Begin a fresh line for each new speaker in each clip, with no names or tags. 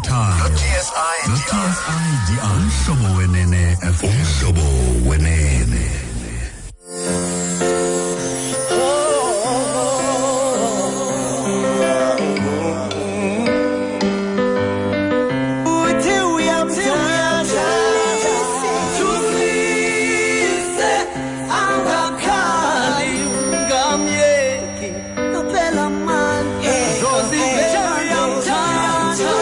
Wothando no-TSIDI. Umhlobo Wenene FM. Umhlobo Wenene.
Uthi uyamthanda, thulise, angakhali, ungamyeki, kuphela amandla. Zozivela uyamthanda,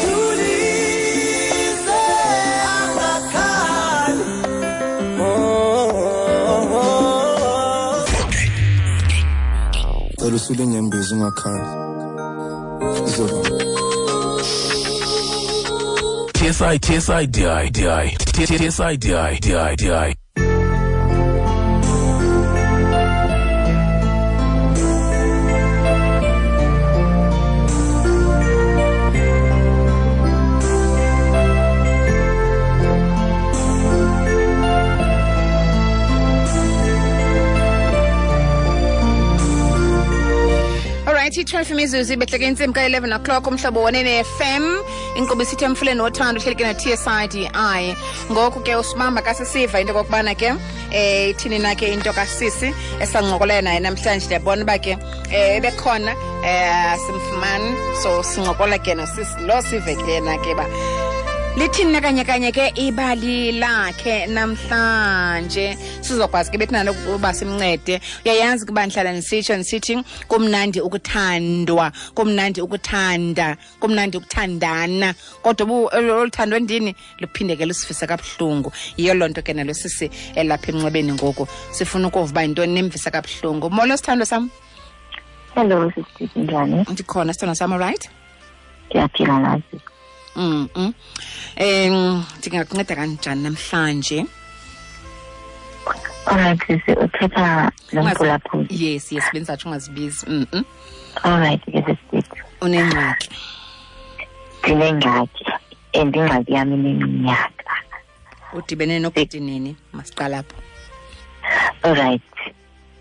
thulise, angakhali. Oh, oh, oh.
Cela usule inyembezi ungakhali. Izoba.
TSI TSI DI DI TSI DI DI DI.
Alright, i-12 imizuzu ibehleke intsimbi ka-11 o'clock, Umhlobo Wenene FM, inkqubo isithi Emfuleni Wothando, uhleli ke no-TSIDI. Ngoku ke usibamba kasisiva into okokubana ke ithini na ke into kasisi esancokola naye namhlanje. Ndiyabona uba ke ebekhona, simfumani, so sincokola ke nosisi lo, sive ke yena ke uba lithini na kanye kanye ke ibali lakhe namhlanje, sizokwazi ke bethina ukuba simncede. Uyayazi kuba ndihlala ndisitsho ndisithi kumnandi ukuthandwa, kumnandi ukuthanda, kumnandi ukuthandana, kodwa olu thando ndini luphinde ke lusifise kabuhlungu. Yiyo loo nto ke nalo sisi elapha emnxebeni ngoku sifuna ukuva uba yintoni nemvisa kabuhlungu. Molo sithandwa sam.
Hello sisi, njani?
Ndikhona sithandwa sam, alright?
Ndiyaphila nazi.
Ndingakunceda kanjani namhlanje?
Alright sisi, uthetha nomphulaphuli.
Yes, yes, bendizatsho ungazibizi.
Alright ke sisi.
Unengxaki?
Ndinengxaki, and ingxaki yam ineminyaka.
Udibene nobhuti nini? Masiqala apho.
Alright,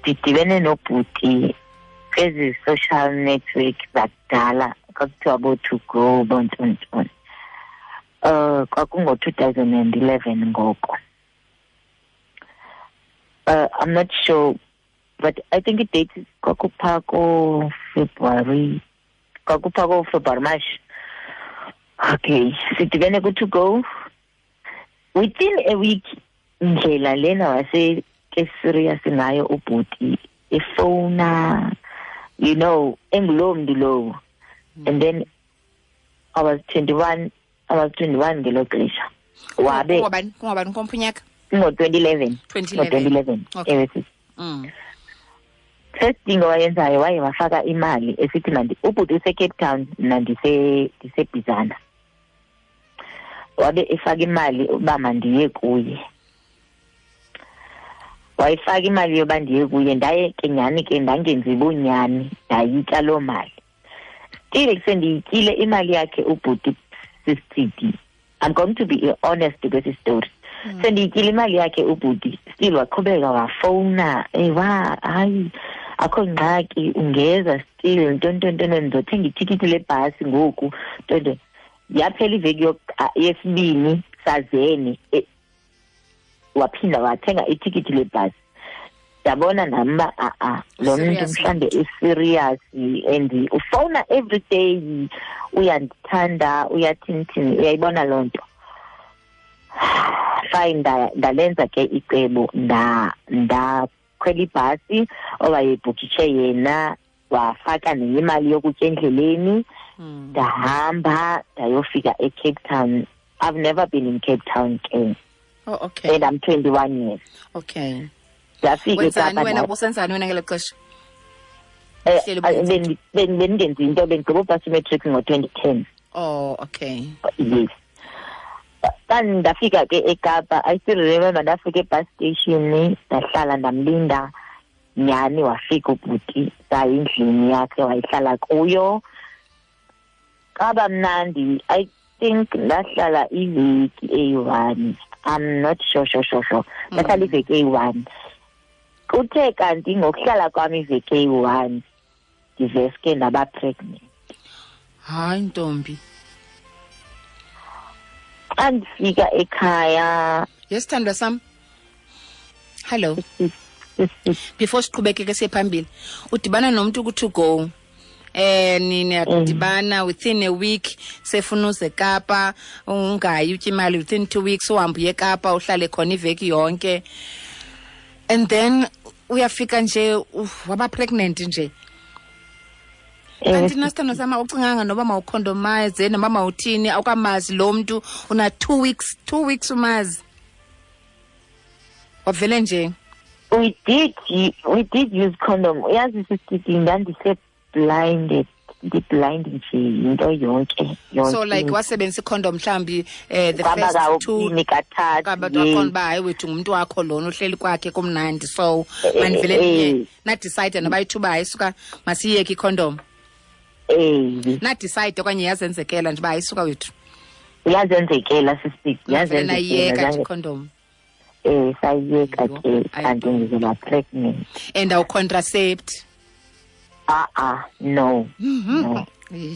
ndidibene nobhuti kwezi social network zakudala, kwakuthiwa bo-to go, bontontoni. Kwakungo-2011 ngoko. I'm not sure, but I think i-date kwakupha ko-February, kwakupha ko-February, March. Okay, sidibene ku-to go. Within a week, ndlela lena wase ke serious ngayo ubhuti, efowuna, you know, engulowo mntu lowo. And then I was 21 ngelo xesha. Wabe
Kungobani komphunyaka?
Ngo-2011.
2011.
Ngo-2011.
Okay.
Ewe sisi. First thing owayenzayo, waye wafaka imali esithi mandi, ubhuti use-Cape Town, mna ndiseBhizana. Wabe efaka imali uba mandiye kuye. Wayifaka imali yoba ndiye kuye, ndaye ke nyhani ke ndangenzi bunyani, ndayitya loo mali. Still sendiyityile imali yakhe ubhuti sisithidi. I'm going to be honest kwesi story. Sendiyityile imali yakhe ubhuti, still waqhubeka wafowuna, ewa hayi akho ngxaki, ungeza still, ntontontono, ndizothenga itikiti lebhasi ngoku, ntonto. Yaphela iveki yesibini sazene, waphinda wathenga itikiti lebhasi. Ndabona nam uba a-a lo mntu
Serious.
mhlawumbe userious and ufowuna every day, uyandithanda, uyathinithini, uyayibona loo nto. Fine, ndalenza ke icebo, ndakhwela ibhasi owayebhukishe yena, wafaka nenye imali yokutya endleleni. Ndahamba ndayofika eCape Town. I've never been in Cape Town ke.
Oh, okay.
And I'm 21 years.
Okay.
Ndafika
Wenzani
eKapa.
wena, ubusenzani wena ngelo xesha? Uhleli ubuyenza?
Bendingenzi into, bendigqiba upasa imatric ngo-2010.
Oh, okay.
Yes. Xa ndafika ke eKapa, I still remember ndafika e-bus station, ndahlala ndamlinda, nyhani wafika ubhuti, saya endlini yakhe wayihlala kuyo. Kwaba mnandi, I think ndahlala iveki eyi-1. I'm not sure, sure, sure, sure. Ndahlala iveki eyi-1. Kuthe kanti ngokuhlala kwam iveki eyi-1, ndiveske ndaba pregnant.
Hayi ntombi.
Xa ndifika ekhaya.
Yes, sithandwa sam. Hello. Before siqhubekeke siye phambili, udibana nomuntu ku-to go. Niyadibana within a week, sefuna uze eKapa, ungayi utye imali within 2 weeks, uhambe uye eKapa, uhlale khona iveki yonke. And then uyafika nje waba pregnant nje. Kanti nasithandwa sam, awucinganga noba mawukhondomaze noba mawuthini, awukamazi lo mntu, una 2 weeks, 2 weeks umazi. Wavele nje.
We did use condom. Uyazi sisithi ndandise blinded, ndi-blind nje into yonke.
So like wasebenzisa icondom mhlambi the first two
kathathu.
Waqonda uba hayi wethu ngumntu wakho lona uhleli kwakhe kumnandi, so mandivele ndiye na-decide noba ithuba hayi suka masiyeke icondom. Na-decide okanye yazenzekela nje uba hayi suka wethu.
Yazenzekela sisithi,
yazenzekela icondom.
Sayiyeka ke kanti ngizoba pregnant.
And awu-contracept?
No. No.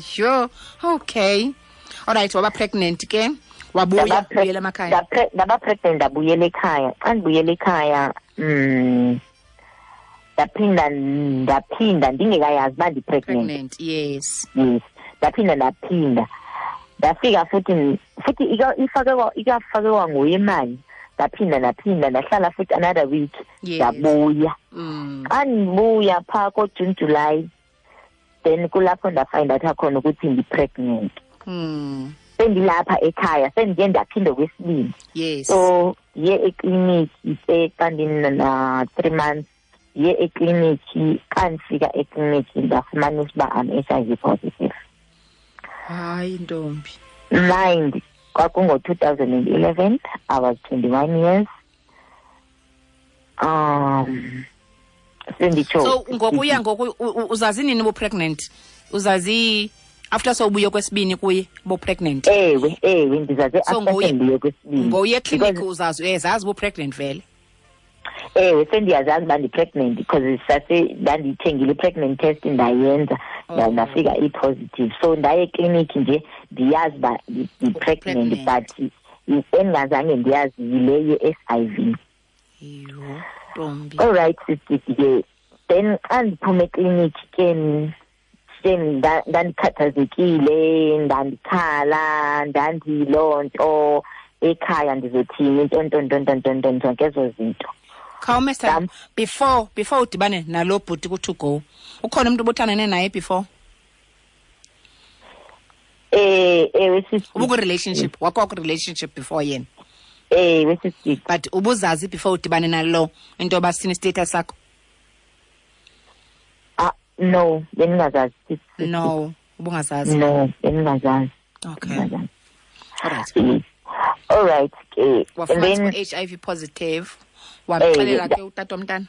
Sure. Okay. All right, waba pregnant ke? Wabuya ubuyela emakhaya.
Ndaba pregnant ndabuyela ekhaya. Xa ndibuyela ekhaya, ndaphinda ndingekayazi uba ndi-pregnant.
Yes.
Yes. Ndaphinda. Ndafika futhi ikafakwa nguye imali. Ndaphinda ndahlala futhi another week. Ndabuya. Xa ndibuya phaa ko-June, July, then kulapho ndafind out khona ukuthi ndi-pregnant. Sendilapha ekhaya, sendiye ndaphinda okwesibini.
Yes.
So ndiye ekliniki xa ndina 3 months, ndiye ekliniki. Xa ndifika ekliniki ndafumanisa uba I'm HIV positive.
Hayi ntombi.
Mind, kwakungo-2011, I was 21 years.
So ngokuya ngoku uzazi nini ubu-pregnant? Uzazi after sowubuye kwesibini kuye ubu-pregnant?
Ewe, ndizazi after sendibuye kwesibini.
Ngokuya ekliniki uzazi, uyazazi ubu-pregnant vele?
Ewe, sendiyazazi uba ndi-pregnant because ndandiyithengile i-pregnant test ndayenza, ndafika i-positive. So ndaye ekliniki nje ndiyazi uba ndi-pregnant, but endingazange ndiyazi yile ye-HIV.
Yho, ntombi.
All right, sisithi ke. Then xa ndiphuma ekliniki ke ndandikhathazekile, ndandikhala, ndandiyiloo nto ekhaya ndizothini, nto zonke ezo zinto.
Khawume sithando, before udibane nalo bhuti ku-to go, ukhona umntu obuthandane naye before?
Ewe sisi.
Ubuku-relationship, wakho ku-relationship before yena?
Ewe sisi.
But ubuzazi before udibane nalo into yoba sini status sakho?
No, bendingazazi.
No, ubungazazi.
No, bendingazazi.
Okay. All right.
All right.
And then HIV positive. Wamxelela ke utata womntana?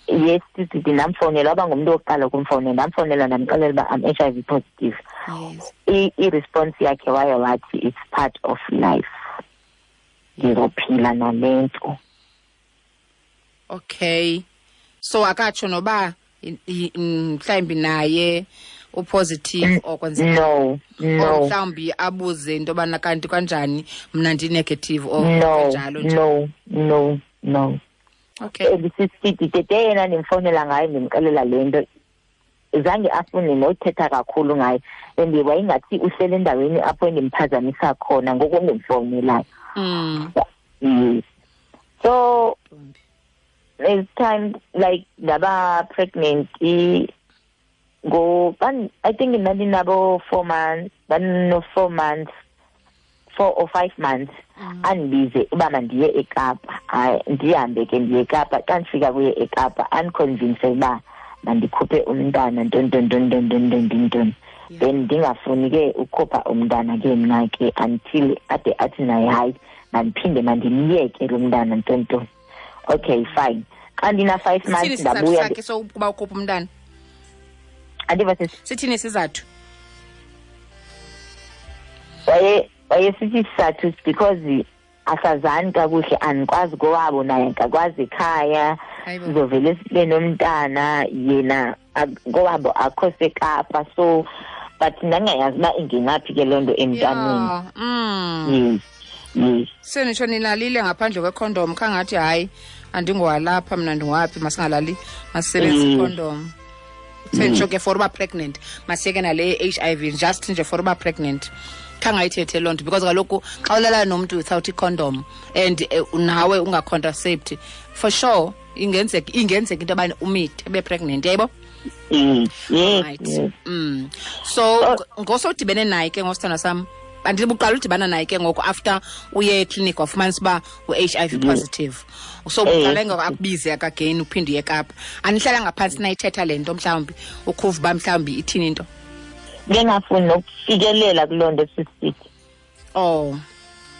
Yes, sisi, ndamfowunela, waba ngumntu wokuqala ukumfowunela. Ndamfowunela ndamxelela uba I'm HIV positive.
Yes.
I-response yakhe waye wathi it's part of life. Ndizophila nale nto.
Okay. So akatsho noba mhlawumbi naye upositive or kwenzeka?
No.
Mhlawumbi abuze into yobana kanti kanjani mna ndi-negative or kanjalo nje.
No.
Okay.
Sisithi tete yena ndimfowunela ngayo ndimxelela le nto, zange afune nothetha kakhulu ngayo, and wayingathi uhlele endaweni apho endimphazamisa khona ngoku ndimfowunelayo. Yes. So there's time like ndaba pregnant go I think ndandinabo 4 months, ndandino 4 months, 4 or 5 months. Andibize uba mandiye eKapa. Hayi, ndihambe ke ndiye eKapa. Xa ndifika kuye eKapa andiconvince uba mandikhuphe umntana nton. Then ndingafuni ke ukhupha umntana ke mna ke until ade athi naye hayi mandiphinde mandimyeke lo mntana nton. Okay, fine. Xa ndina 5 months ndabuya.
Sithini sokuba ukhupha umntana?
Andiva sisi.
Sithini isizathu?
Wayesithi isizathu because asazani kakuhle, andikwazi kowabo naye akakwazi ekhaya, sizovele sibe nomntana yena kowabo akho seKapa, so But ndingayazi uba ingenaphi ke loo nto emntaneni.
Yeah.
Yes, yes.
Senitsho nilalile ngaphandle kwekhondom, khangathi hayi andingowalapha mna, ndingowaphi, masingalali, masisebenzise ikhondom. Senitsho ke for uba pregnant, masiyeke nale HIV, just nje for uba pregnant. Khangayithethe loo nto, because kaloku xa ulala nomntu without icondom and nawe ungacontracept, for sure ingenzeka into yobana umithe ube pregnant, yayibo?
Yes.
Right.
Yes.
So ngosodibene naye ke ngosithandwa sam, andibuqala udibana naye ke ngoku after uye ekliniki wafumanisa uba u-HIV positive. So uqale ngoku akubize again uphinde uye eKapa. Anihlala ngaphantsi nayithetha le nto, mhlawumbi ukhuva uba mhlawumbi ithini into?
Bengafuni nokufikelela kuloo nto, sisithi.
Oh.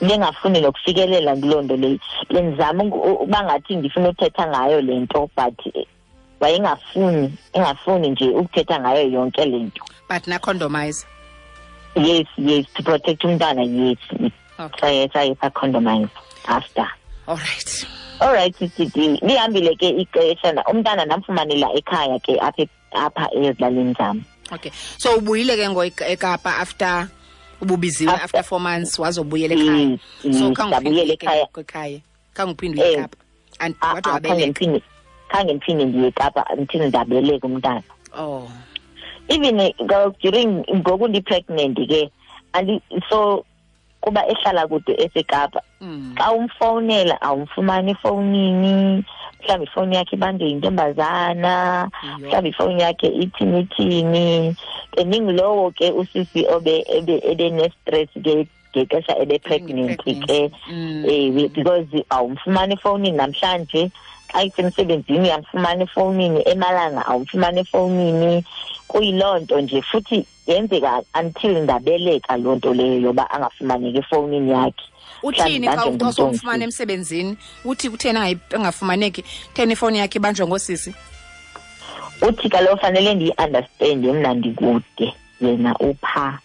Bengafuni nokufikelela kuloo nto leyo. Bendizama uba ngathi ndifuna uthetha ngayo le nto, but wayengafuni, engafuni nje ukuthetha ngayo yonke le nto.
But nacondomize?
Yes, yes, to protect umntana, yes.
Okay.
Saye sacondomize after.
All right.
All right, sisithi. Lihambile ke ixesha, umntana ndamfumanela ekhaya ke apha ezilalini zam.
Okay. So ubuyile ke ngo eKapa after ububiziwe after 4 months wazobuyela ekhaya. So
ndabuyela ekhaya.
Ekhaya. Khange uphinde uye eKapa. And wathi wabeleka.
Khange ndiphinde ndiye eKapa until ndabeleka umntana.
Oh.
Even during ngoku ndi-pregnant ke, so kuba ehlala kude eseKapa, xa umfowunela awumfumani efowunini, mhlawumbi ifowuni yakhe ibanjwe yintombazana, mhlawumbi ifowuni yakhe ithini. Ndingulowo ke usisi ebe ne-stress ke ngexesha ebe-pregnant ke, because awumfumani efowunini namhlanje, xa isemsebenzini uyamfumana efowunini, emalanga awumfumani efowunini. Kuyiloo nto nje, futhi yenzeka until ndabeleka loo nto leyo yoba angafumaneki efowunini yakhe.
Uthini xa usomfumana emsebenzini? Uthi kutheni engafumaneki? Kutheni ifowuni yakhe ibanjwa ngosisi?
Uthi kaloku fanele ndiyi-understande mna ndikude, yena upha.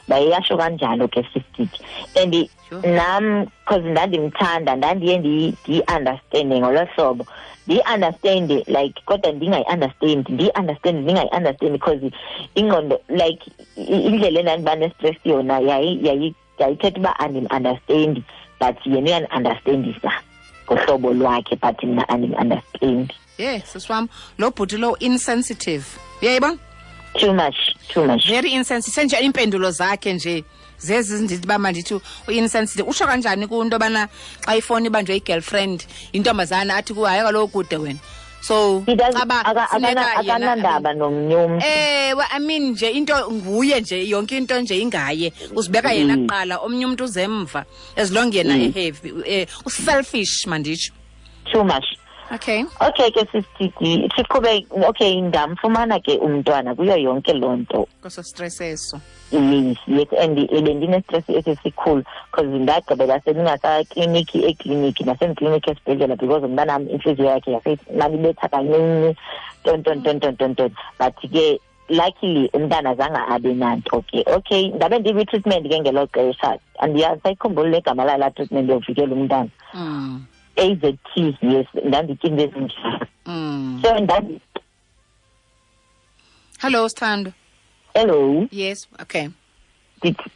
Bayasho kanjalo ke sisithi. And nam because ndandimthanda, ndandiye ndiyi-understande ngolo hlobo. Ndiyi-understande like kodwa ndingayi-understand, ndiyi-understand ndingayi-understand, because ingqondo like indlela endandiba ne-stress yona yayithetha uba andim-understandi, but yena uyandi-understandisa ngohlobo lwakhe, but mna andim-understandi.
Yeah, sisi wam, lo bhuti lo insensitive. Uyayibona?
Too much, too much.
Very insensitive. Senje iimpendulo zakhe nje zezi ndithi uba mandithi u-insensitive. Utsho kanjani kunto yobana xa ifowuni ibanjwe i-girlfriend, intombazana athi kuwe hayi kaloku kude wena. So caba funeka yena
akanandaba nomnye umntu.
Ewe, I mean nje into nguye nje, yonke into nje ingaye. Uzibeka yena kuqala, omnye umntu uzemva. As long yena e-heavy, u-selfish manditsho.
Too much.
Okay.
Okay ke sisithi siqhube, okay, ndamfumana ke umntwana kuyo yonke loo nto.
Koso stress eso.
Yes, yes, and bendine-stress esisikhulu because ndagqibela sendingasakliniki ekliniki nasemkliniki esibhedlela, because umntanam intliziyo yakhe yasemalibetha kancinci, ton ton ton ton ton ton. But ke luckily umntana zange abe nanto ke. Okay, ndabe ndikwi-treatment ke ngelo xesha, andiyazi sayikhumbula legama layo laa treatment yokuvikela umntana. AZT, yes, ndanditya into ezinjalo. So
Hello, Sithando.
Hello.
Yes, okay.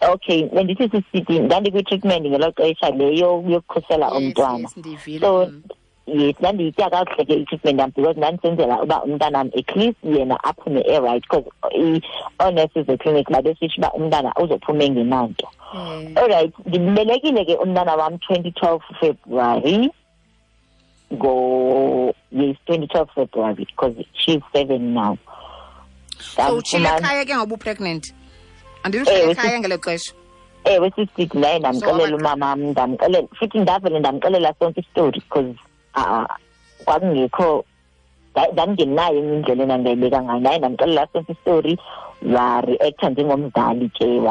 Okay, bendithi sisithi ndandikwi-treatment ngelo xesha leyo yokukhusela umntwana.
Yes, ndivile.
So yes, ndandiyitya kakuhle ke i-treatment yam, because ndandisenzela uba umntanam at least yena aphume e-right, because oonesi zekliniki babesitsho uba umntana uzophuma engenanto. All right, ndimbelekile ke umntana wam 2012 February. Yes, 2012 February, because she's 7 now.
So utshile ekhaya ke ngoba u-pregnant? Andithi utshile ekhaya ngelo xesha?
Ewe, sisithi ndaye ndamxelela umamam, ndamxelela futhi ndavele ndamxelela sonke isitori, because kwakungekho, ndandingenayo enye indlela endandingayibeka ngayo. Ndaye ndamxelela sonke isitori, wa-reacta njengomzali ke,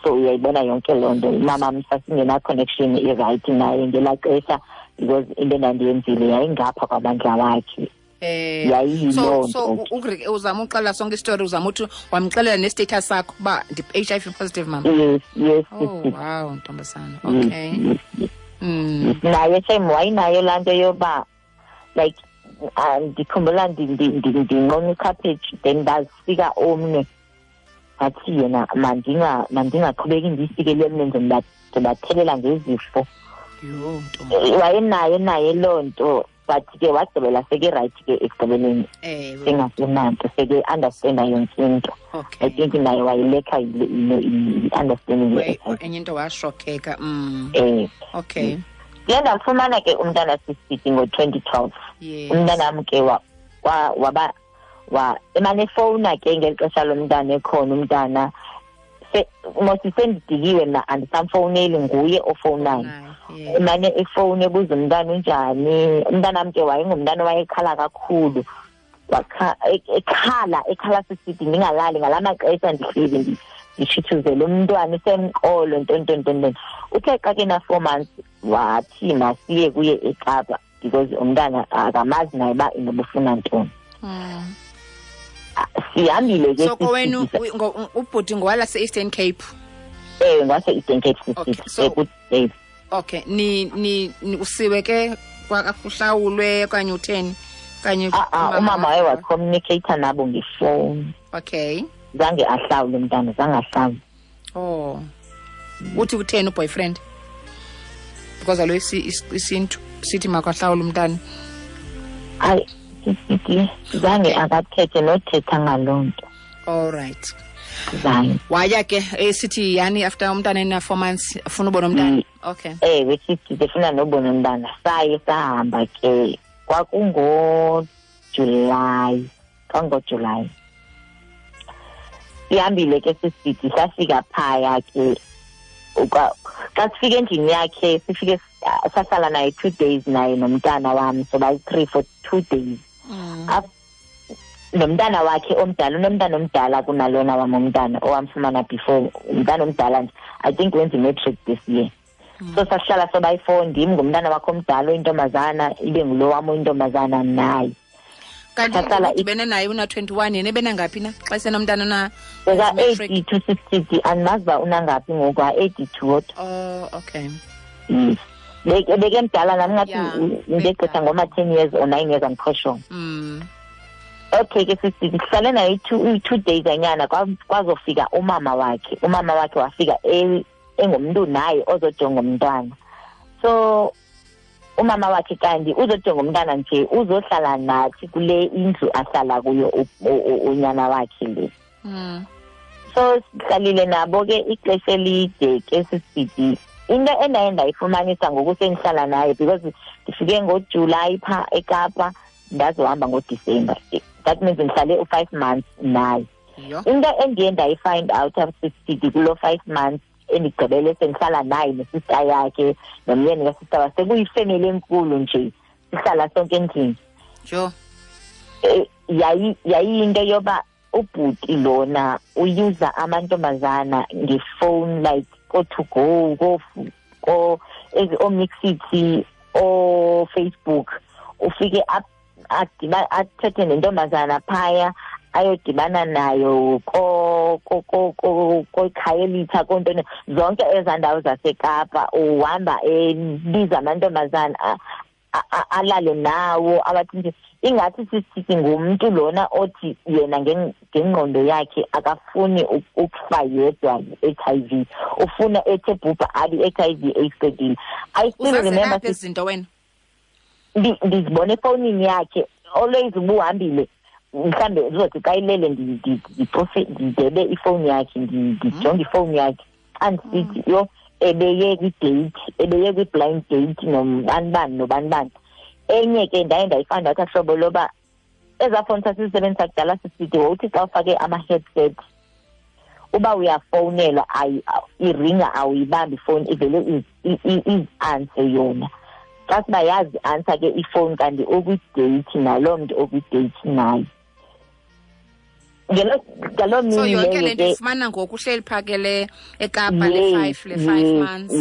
so uyayibona yonke loo nto. Umamam sasingena-connection i-right naye ngelaa xesha, because into endandiyenzile yayingapha kwamandla wakhe.
So uzama uxelela sonke isitori, uzama uthi wamxelela ne-status sakho uba ndi-HIV positive, mama.
Yes, yes.
Oh wow, ntombazana. Okay.
Yes, yes. Naye same wayinayo laa nto yoba like ndikhumbula ndinqona ikhaphetshu, then ndazifika omnye Wathi yena mandingaqhubeki ndiyisikele emlenze, ndibathelela ngezifo.
Yho, ntombi.
Wayenayo naye loo nto, but ke wagqibela seke-right ke ekugqibeleni. Sengasenanto, seke-understanda yonke into. I think naye wayilekha i-understanding ye-HIV.
Enye into washokheka. Okay.
Ndiye ndamfumana ke umntana sisithi ngo-2012. Umntanam ke waba emane efowuna ke ngeli xesha lomntana ekhona umntana. Mos sendidikiwe mna, andisamfowuneli, nguye ofowunayo. Emane efowuni ebuza umntana unjani. Umntanam ke wayengumntana owayekhala kakhulu. Ekhala sisithi ndingalali ngalaa maxesha ndihleli ndishithuzele umntwana usemqolo ntontontonton. Uthe xa ke na-4 months wathi masiye kuye eKapa because umntana akamazi naye uba inobufuna ntoni. Sihambile ke.
So kowenu ubhuti ngowalase-Eastern Cape?
Ewe, ngowase-Eastern Cape sisithi.
Okay, ni usiwe ke kwakuhlawulwe okanye utheni? Kanye
umama waye wacommunicate nabo ngefowuni.
Okay.
Zange ahlawule umntana, zange ahlawule.
Oh. Uthi utheni uboyfriend? Because alo isintu sithi makahlawule umntana.
Hayi, sithi zange akathethe nothetha ngaloo nto.
All right.
Zange.
Waya ke esithi yani after umntana ena 4 months ufuna ubona umntana. Okay.
Ewe, sithi ndifuna nobona umntana. Saye sahamba ke. KwakungoJulayi, kwangoJulayi. Sihambile ke sisithi safika phaya ke. Xa sifika endlini yakhe sifike sahlala naye 2 days naye nomntana wam, so bayi-3 for 2 days. Nomntana wakhe omdala, unomntana omdala kunalona wam umntana owamfumana before, umntana omdala nje, I think wenza i-matric this year. So sahlala sobayi-4, ndim ngumntana wakhe omdala oyintombazana, ibe ngulo wam oyintombazana naye.
Kanti udibene naye una-21, yena ebenangaphi na xa esenomntana una
Beka-82 sisithi, andimazi uba unangaphi ngoku, a-82 kodwa.
Oh, okay.
Yes. Bekemdala nam ngathi ndegqitha ngoma-10 years or 9 years, I'm quite sure. Okay ke sisithi sihlale naye 2 days anyana, kwazofika umama wakhe. Umama wakhe wafika engumntu naye ozojonga umntwana. So umama wakhe kanti uzojonga umntana nje, uzohlala nathi kule indlu ahlala kuyo unyana wakhe le. So sihlalile nabo ke ixesha elide ke sisithi. Into endaye ndayifumanisa ngoku sendihlala naye, because ndifike ngoJulayi phaa eKapa, ndazohamba ngoDisemba. That means ndihlale u-5 months naye. Into endiye ndayifind out sisithi kuloo 5 months endigqibele sendihlala naye nesista yakhe nomyeni kasista wakhe, sekuyifemeli enkulu nje, sihlala sonke endlini.
Sure.
Yayiyinto yoba ubhuti lona uyuza amantombazana ngefowuni, like ko-to go, ko ooMixity, ooFacebook, ufike athethe nentombazana phaya, ayodibana nayo koKhayelitsha, kontoni, zonke ezaa ndawo zaseKapa. Uhamba ebiza amantombazana alale nawo, abathi nje ingathi sisithi ngumntu lona othi yena ngengqondo yakhe akafuni ukufa yedwa i-HIV, ufuna ethe bhubha abe i-HIV eyiqedile. I still remember
izinto wena
ndizibone efowunini yakhe always ubuhambile, mhlambe uzothi xa ilele ndicofe ndidebe ifowuni yakhe, ndijonge ifowuni yakhe, xa ndisithi yho ebeye kwidate, ebeye kwi-blind date nobanibani nobanibani. Enye ke ndaye ndayifanda wathi hlobo loba ezaa fowuni sasizisebenzisa kudala sisithi wawuthi xa ufake ama-headset uba uyafowunelwa iringa awuyibambi ifowuni, ivele izi-anse yona. Xa siba yazi ansa ke ifowuni kanti okwi-date naloo mntu okwi-date naye. Ngaloo mini
So yonke le nto ifumana ngoku uhleli phaa ke le eKapa le 5 months.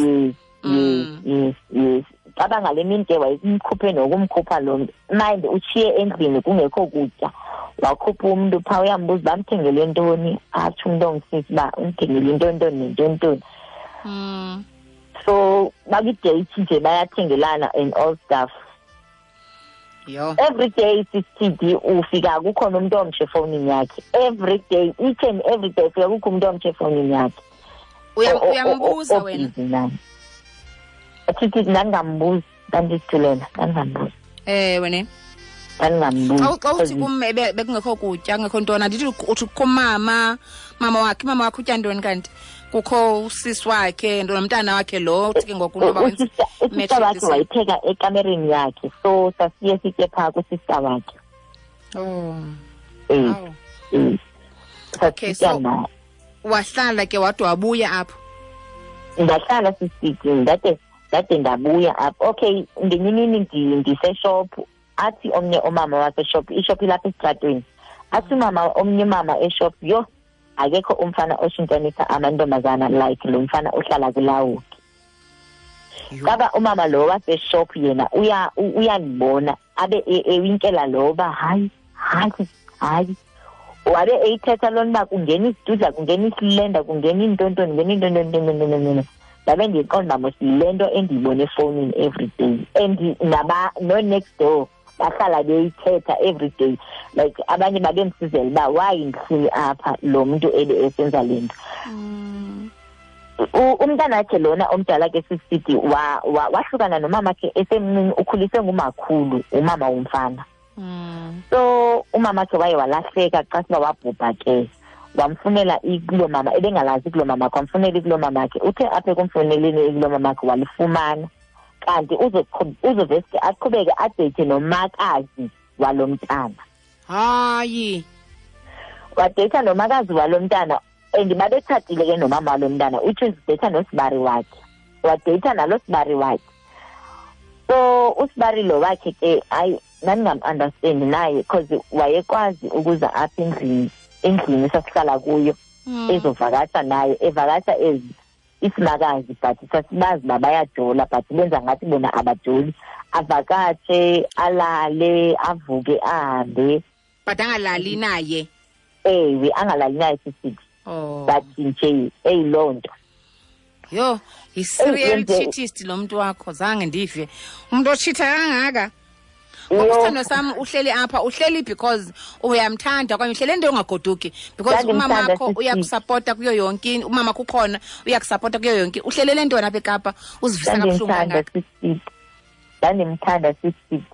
Yes. Caba ngale mini ke wayemkhuphe nokumkhupha lo mntu. Mind utshiye endlini kungekho kutya. Wakhupha umntu phaa uyambuza uba amthengele ntoni, atsho umntu ongisisi uba umthengele intoni nentoni. So bakwi-date nje bayathengelana and all stuff.
Yho.
Every day, sisithidi, ufika kukhona umuntu omtsha efowunini yakhe. Every day, each and every day ufika kukho umuntu omtsha efowunini yakhe.
Uyambuza wena?
Obhizi naye. Sithi ndandingambuzi, ndandizithulela, ndandingambuzi.
Ewe ne.
Ndandingambuzi.
Xa uthi kum bekungekho kutya, kungekho ntoni, andithi uthi kukho mama wakhe, mama wakhe utya ntoni kanti? Kukho usisi wakhe, nomntana wakhe lo, uthi ke ngoku noba wenza
Usista wakhe wayipheka ekamereni yakhe, so sasiye sitye phaa kusista wakhe.
Oh. Okay,
Sasitya
so
naye.
Wahlala ke wade wabuya apho?
Ndahlala sisitye, ndade ndabuya apho. Okay, ngenye imini ndiseshophu, athi omnye umama waseshophu, ishophu ilapha esitratweni. Athi omnye umama eshophu, yho, akekho umfana oshintshanisa amantombazana like lo mfana ohlala kulawuki. Kaba umama lo waseshophu yena uyandibona, abe ewinkela lo uba hayi, hayi, hayi. Wabe eyithetha loo nto uba kungena isidudla, kungena isilenda, kungena iintontoni, kungena iintontoni. Ndabe ndiyiqonda uba mos le nto endiyibona efowunini every day. And no next door bahlala beyithetha every day. Like abanye babemsizela uba why ndihleli apha lo mntu ebe esenza le nto. Umntanakhe lona omdala ke sisithi wahlukana nomamakhe esemncinci, ukhuliswe ngumakhulu, umama womfana. So umamakhe waye walahleka xa siba wabhubha ke. Wamfunela ikulo mama, ebengalazi ikulo mama, wamfunela ikulo mamakhe. Uthe apha ekumfuneleni ikulo mamakhe walifumana. Kanti uzoveske aqhubeke adate nomakazi walo mntana.
Hayi.
Wadate nomakazi walo mntana, and babetshatile ke nomama walo mntana, which is date nosibari wakhe. Wadate nalo sibari wakhe. So usibari lo wakhe ke hayi ndandingam-understand naye, because wayekwazi ukuza apha endlini sasihlala kuyo, ezovakasha naye, evakasha ezi isimakazi, but sasibazi uba bayajola, but benza ngathi bona abajoli. Avakatshe, alale, avuke, ahambe.
But angalali naye?
Ewe, angalali naye sisithi.
Oh.
But nje eyiloo nto.
Yho, yi-serial cheatist lo mntu wakho, zange ndive. Umntu otshitha kangaka. Ngoba sam uhleli apha, uhleli because uyamthanda okanye uhleli into ongagoduki, because umama wakho uyakusupporta kuyo yonke, umama kukhona uyakusupporta kuyo yonke. Uhlelele ntoni apha eKapa uzivisa kabuhlungu kangaka?
Ndandimthanda sisithi.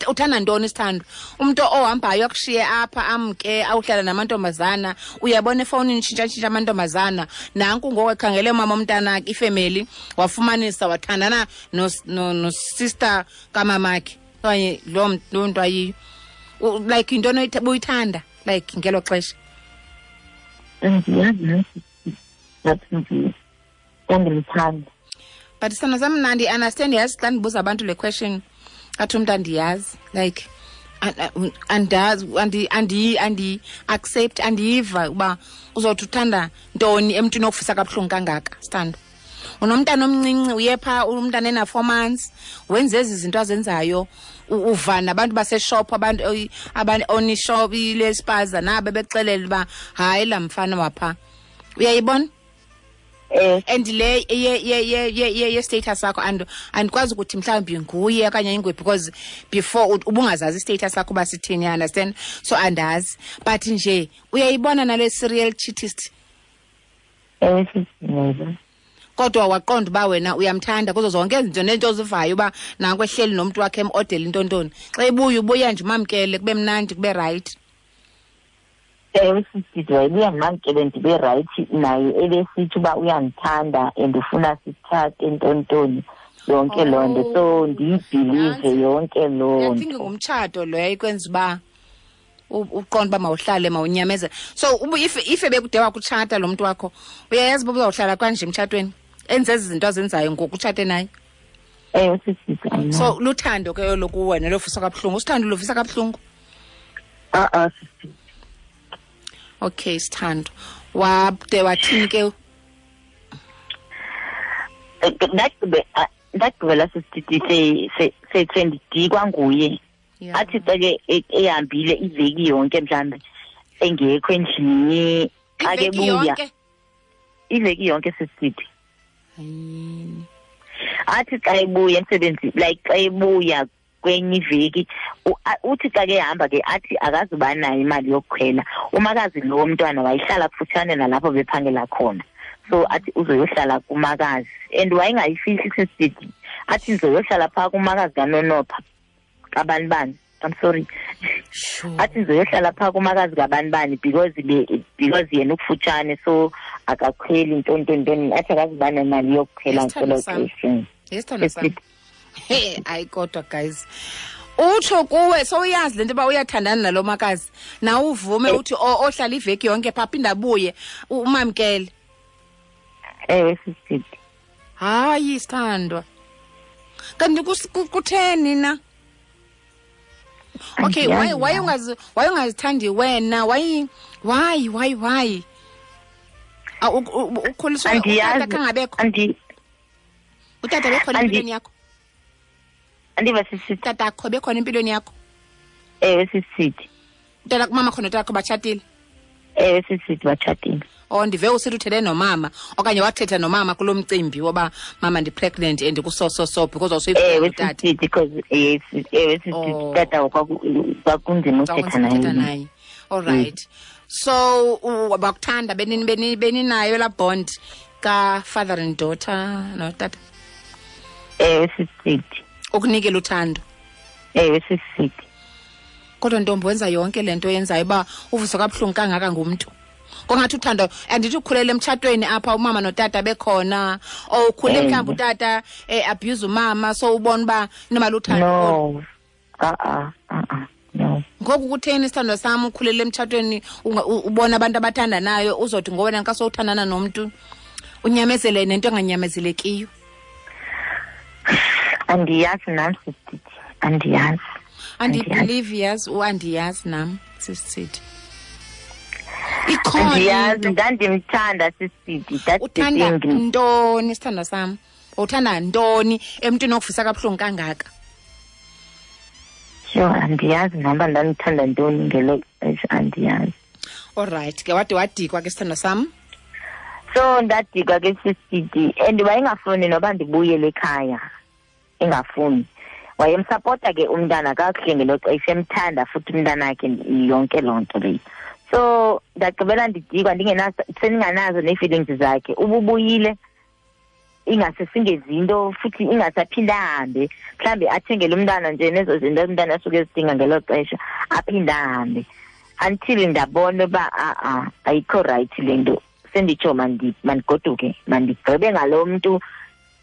Uthanda ntoni isithando? Umuntu ohambayo akushiye apha amke awuhlala namantombazana, uyabona efowunini tshintsha amantombazana. Nanku ngoku ekhangele umama omntana ifemeli, wafumanisa wathandana no sister kamamakhe. Okanye loo nto ayiyo. Like into buyithanda like ngelo xesha.
Andiyazi nathi ndandimthanda.
But sana sam mna ndi-understand, yazi xa ndibuza abantu le question athi umntu andiyazi, like andazi, andi-accept, andiyiva uba uzothi uthanda ntoni emntwini okufisa kabuhlungu kangaka, sithando. Unomntana omncinci, uye phaa umntana ena-4 months, wenze ezi zinto azenzayo, uva nabantu baseshop, abantu onishop ilespaza nabo bexelela uba hayi laa mfana waphaa. Uyayibona? And le ye status sakho andikwazi ukuthi mhlawumbi nguye okanye inguye, because before ubungazazi status sakho uba sithini, you understand? So andazi, but nje uyayibona nale serial cheatist. Kodwa waqonda uba wena uyamthanda kuzo zonke izinto nento ozivayo uba nanku ehleli nomntu wakhe emodela intontoni. Xa ebuya ubuya nje umamkele kube mnandi kube right.
Ewe sisithi wayebuya ndimamkele ndibe right naye, ebesithi uba uyandithanda and ufuna sitshate ntontoni yonke loo nto, so ndiyibhilive yonke loo
nto. I think ngumtshato lo yayikwenza uba uqonda uba mawuhlale mawunyamezele. So if ebekude wakutshata lo mntu wakho, uyayazi uba uzawuhlala kanje emtshatweni, enze ezi zinto azenzayo ngoku utshate naye.
Ewe sisithi.
So luthando ke olo kuwena lovisa kabuhlungu, usithando lovisa kabuhlungu?
A-a sisithi.
Okay, sithando. Wade wathini ke?
Ndagqibela sisithi sendidikwa nguye. Athi xa ke ehambile iveki yonke mhlawumbi engekho endlini, xa ke buya iveki yonke sisithi. Athi xa ebuya emsebenzini, like xa ebuya kwenye iveki. Uthi xa ke ehamba ke athi akazuba nayo imali yokukhwela. Umakazi lo mntwana wayehlala kufutshane nalapho bephangela khona, so athi uzoyohlala kumakazi, and wayengayifihli sisithi athi ndizoyohlala phaa kumakazi kaNonopha kabani bani. I'm sorry.
Sure.
Athi ndizoyohlala phaa kumakazi kabani bani because yena ukufutshane, so akakhweli ntontontoni, athi akazuba nemali yokukhwela
Isithando
ngelo
sam.
xesha.
Isithando sam. Hey, hayi kodwa guys, utsho kuwe sowuyazi le nto uba uyathandana nalo makazi, nawe uvume uthi ohlala iveki yonke phaa aphinde abuye, umamkele.
Ewe sisithi.
Hayi sithandwa, kanti kutheni na? Okay,
Andiyazi
why
nam.
why ungazithandi wena? Why why why why? Ukhuliswe utata
Andiyazi.
kangabekho. Utata bekhona empilweni yakho?
Andiva sisithi.
Utata akho bekhona empilweni yakho?
Ewe sisithi.
Utata kumama khona, utata akho batshatile?
Ewe sisithi, batshatile.
Oh, ndive usithi uthethe nomama okanye wathetha nomama kulo mcimbi woba mama ndi-pregnant and kuso so so because awusuyifuna
Ewe
utata.
sisithi, because yes, ewe sisithi,
Oh.
tata kwakunzima uthetha
Kwakunzima uthetha
naye.
naye. All right. So bakuthanda beninayo laa bond ka-father and daughter notata?
Ewe sisithi.
Ukunikela uthando.
Ewe sisithi.
Kodwa ntombi, wenza yonke le nto yenzayo uba uvuswa kabuhlungu kangaka ngumntu. Kongathi uthando, andithi ukhulele emtshatweni apha umama notata bekhona, or ukhule mhlawumbi utata abuse umama, so ubona uba inoba luthando.
No. No.
Ngoku kutheni isithandwa sam ukhulele emtshatweni ubona abantu abathandanayo, uzothi ngowena xa sowuthandana nomntu unyamezele nento enganyamezelekiyo?
Andiyazi nam sisithi, andiyazi.
Andibelieve yazi, andiyazi nam sisithi. Ikhona
Andiyazi,
into.
Ndandimthanda sisithi. That's the
Uthanda
thing.
ntoni sithandwa sam? Uthanda ntoni emntwini okuvisa kabuhlungu kangaka?
Sure, andiyazi nam uba ndandithanda ntoni ngelo xesha, andiyazi.
All right, ke wade wadikwa ke sithandwa sam?
So ndadikwa ke sisithi, and wayengafuni noba ndibuyele ekhaya, engafuni. Wayemsapota ke umntana kakuhle ngelo xesha, emthanda futhi umntanakhe yonke loo nto leyo. So ndagqibela ndidikwa, sendinganazo nee-feelings zakhe. Ububuyile ingase singezinto futhi ingasaphinda ahambe, mhlawumbi athengele umntana nje nezo zinto umntana asuke ezidinga ngelo xesha, aphinde ahambe, until ndabona uba a-a ayikho right le nto. Senditsho mandigoduke, mandigqibe ngalo mntu,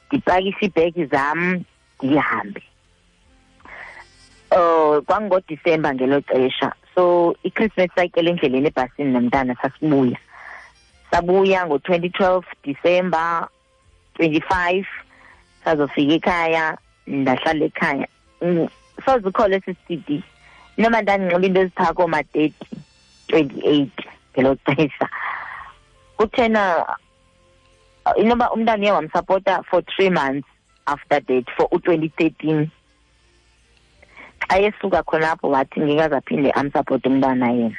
ndipakishe iibhegi zam ndihambe. KwangoDisemba ngelo xesha, so iChristmas sayityela endleleni ebhasini nomntana, sasibuya. Sabuya ngo-2012 December 25, sazofika ekhaya, ndahlala ekhaya. Soze ukhole sisithi noma ndandinxiba into eziphaa kooma-30, 28 ngelo xesha. Kuthena inoba umntana uye wamsapota for 3 months after that, for u-2013. Xa esuka khonapho wathi ngeke aphinde amsapote umntana yena.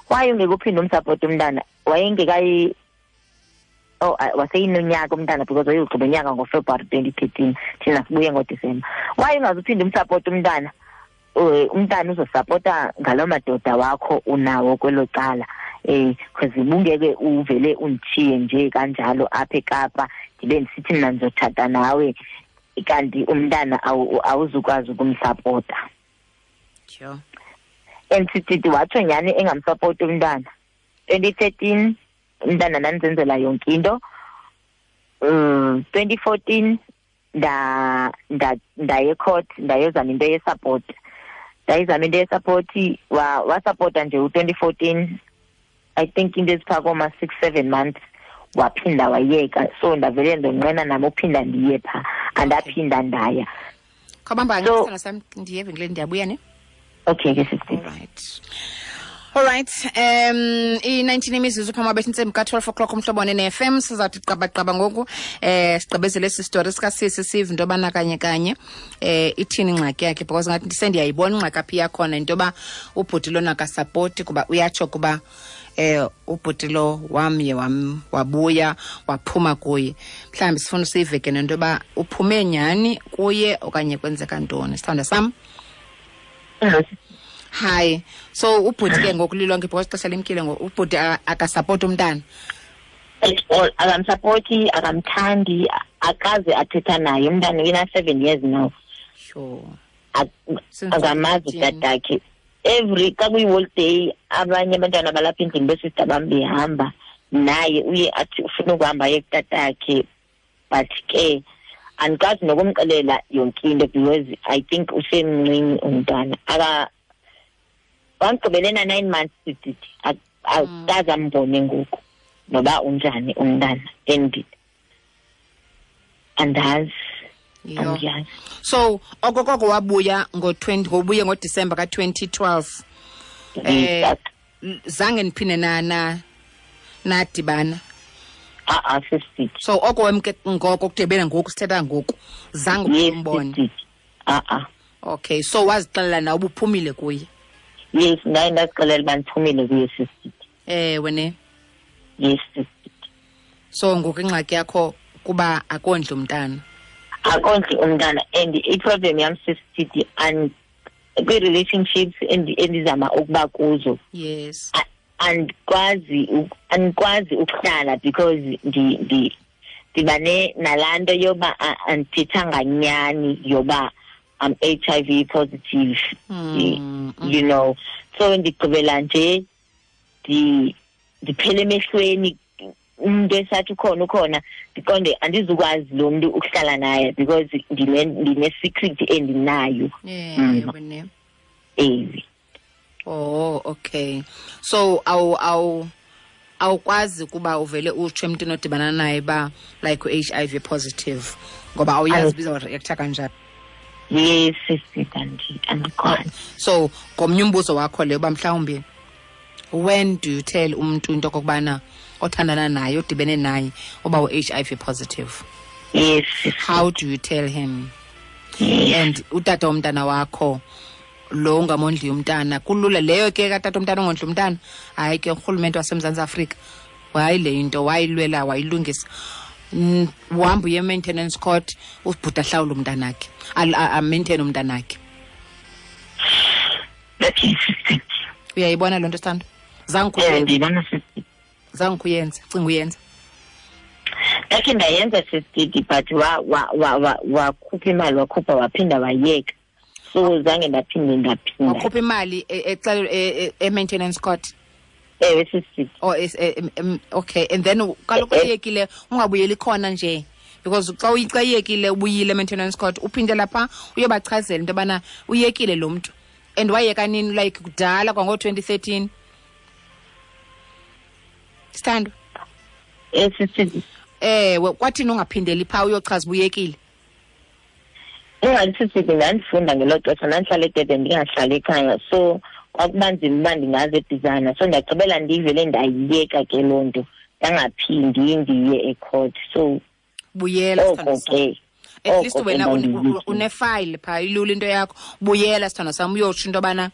Why ungeke uphinde umsapote umntana? Wayengekayi, oh, waseyinonyaka umntana, because wayeyogqiba unyaka ngoFebruary 2013, thina sibuye ngoDisemba. Why ungazuphinde umsapote umntana? Umntana uzosapota ngaloo madoda wakho unawo kwelo cala. Because ubungeke uvele undishiye nje kanjalo apha eKapa, ndibe ndisithi mna ndizotshata nawe, kanti umntana awuzukwazi ukumsapota.
Sure.
And sithi watsho nyhani engamsapoti umntana. 2013 umntana ndandizenzela yonke into. 2014 ndaye court, ndayozama into ye-support. Ndayizama into ye-support, wasapota nje u-2014, I think into eziphaa kooma 6-7 months, waphinda wayeka. So ndavele ndonqena nam uphinda ndiye phaa, andaphinda ndaya.
Khawubamba
So
ngesithando sam, ndiye evenkileni, ndiyabuya ne?
Okay ke sisi.
All right. All right. I-19 imizuzu phambi kwabethu intsimbi ka-12 o'clock umhlobo ne-FM. Sizawuthi qabaqaba ngoku, sigqibezele esi story sikasisi, sive into yobana kanye kanye ithini ingxaki yakhe, because ngathi sendiyayibona ingxaki apha iyakhona, into yoba ubhuti lona akasapoti, kuba uyatsho kuba ubhuti lo wamye wabuya waphuma kuye. Mhlawumbi sifuna usive ke nento yoba uphume nyhani kuye okanye kwenzeka ntoni. Sithandwa sam, Hi. So ubhuti ke ngoku lilonke because ixesha limkile ngoku, ubhuti akasapoti umntana.
At all, akamsapoti, akamthandi, akaze athetha naye. Umntana una-7 years now.
Sure.
Akamazi utatakhe. Every xa kuyi-holiday abanye abantwana balapha endlini besista bam behamba naye, uye athi ufuna ukuhamba aye kutatakhe, but ke andikwazi nokumxelela yonke into because I think usemncinci umntwana. Wamgqibele na-9 months sithi akaze ambone ngoku noba unjani umntana, and andazi. Andiyazi.
So okokoko wabuya ngo-20, ngobuye ngoDisemba ka-2012. Zange niphinde nadibana?
A-a, sisithi.
So oko wemke ngoko kudibene ngoku sithetha ngoku, zange umbone?
A-a.
Okay, so wazixelela na ubuphumile kuye?
Yes, ndaye ndazixelela uba ndiphumile kuye, sisithi.
Ewe ne?
Yes, sisithi.
So ngoku ingxaki yakho kuba akondli umntana?
Akondli umntana, and i-problem yam, sisithi, and kwi-relationships endizama ukuba kuzo.
Yes.
Andikwazi ukuhlala because ndiba nalaa nto yoba andithethanga nyani yoba I'm HIV positive, you know. So ndigqibela nje ndiphele emehlweni, umuntu esathi ukhona ukhona, ndiqonde andizukwazi lo mntu ukuhlala naye because ndine-secret endinayo. Ewe.
Oh, okay. So awukwazi kuba uvele utsho emntwini odibana naye ba like u-HIV positive ngoba awuyazi biza reacta kanjani.
Yes, sisi, andikwazi.
So ngomnye umbuzo wakho leyo uba mhlawumbi when do you tell umntu into okokubana othandana naye, odibene naye, uba u-HIV positive?
Yes.
How do you tell him?
Yes.
And utata womntana wakho lo ungamondli umntana, kulula leyo ke katata umntana ongondli umntana. Hayi ke urhulumente waseMzantsi Afrika wayi le into wayilwela wayilungisa. Uhamba uye maintenance court, ubhuti ahlawule umntanakhe, a-maintain umntanakhe. Uyayibona loo nto, Sithando?
Ndiyibona, sisi.
Zange uyenze, cinga uyenza.
Ndakhe ndayenza, sisi, but wakhupha imali, wakhupha waphinda wayeka. So zange ndaphinda.
Wakhupha imali e-maintenance court?
Ewe, sisi.
Oh, okay. And then kaloku uyekile ungabuyeli khona nje, because xa uyekile ubuyile e-maintenance court, uphinde lapha uyobachazela into yobana uyekile lo mntu. And wayeka nini, like kudala kwango-2013? Sithando?
Sisi.
Ewe, kwathini ungaphindeli phaa uyochaza uba uyekile?
Ingathi sisi, ndandifunda ngelo xesha, ndandihlala eDurban, ndingahlali ekhaya, so kwakuba nzima uba ndingaze eBizana. So ndagqibela ndivele ndayiyeka ke loo nto, ndangaphindi ndiye ecourt. So
buyela,
oko ke.
At least wena une-file phaa, ilula into yakho. Buyela, sithando sam, uyotsho into yobana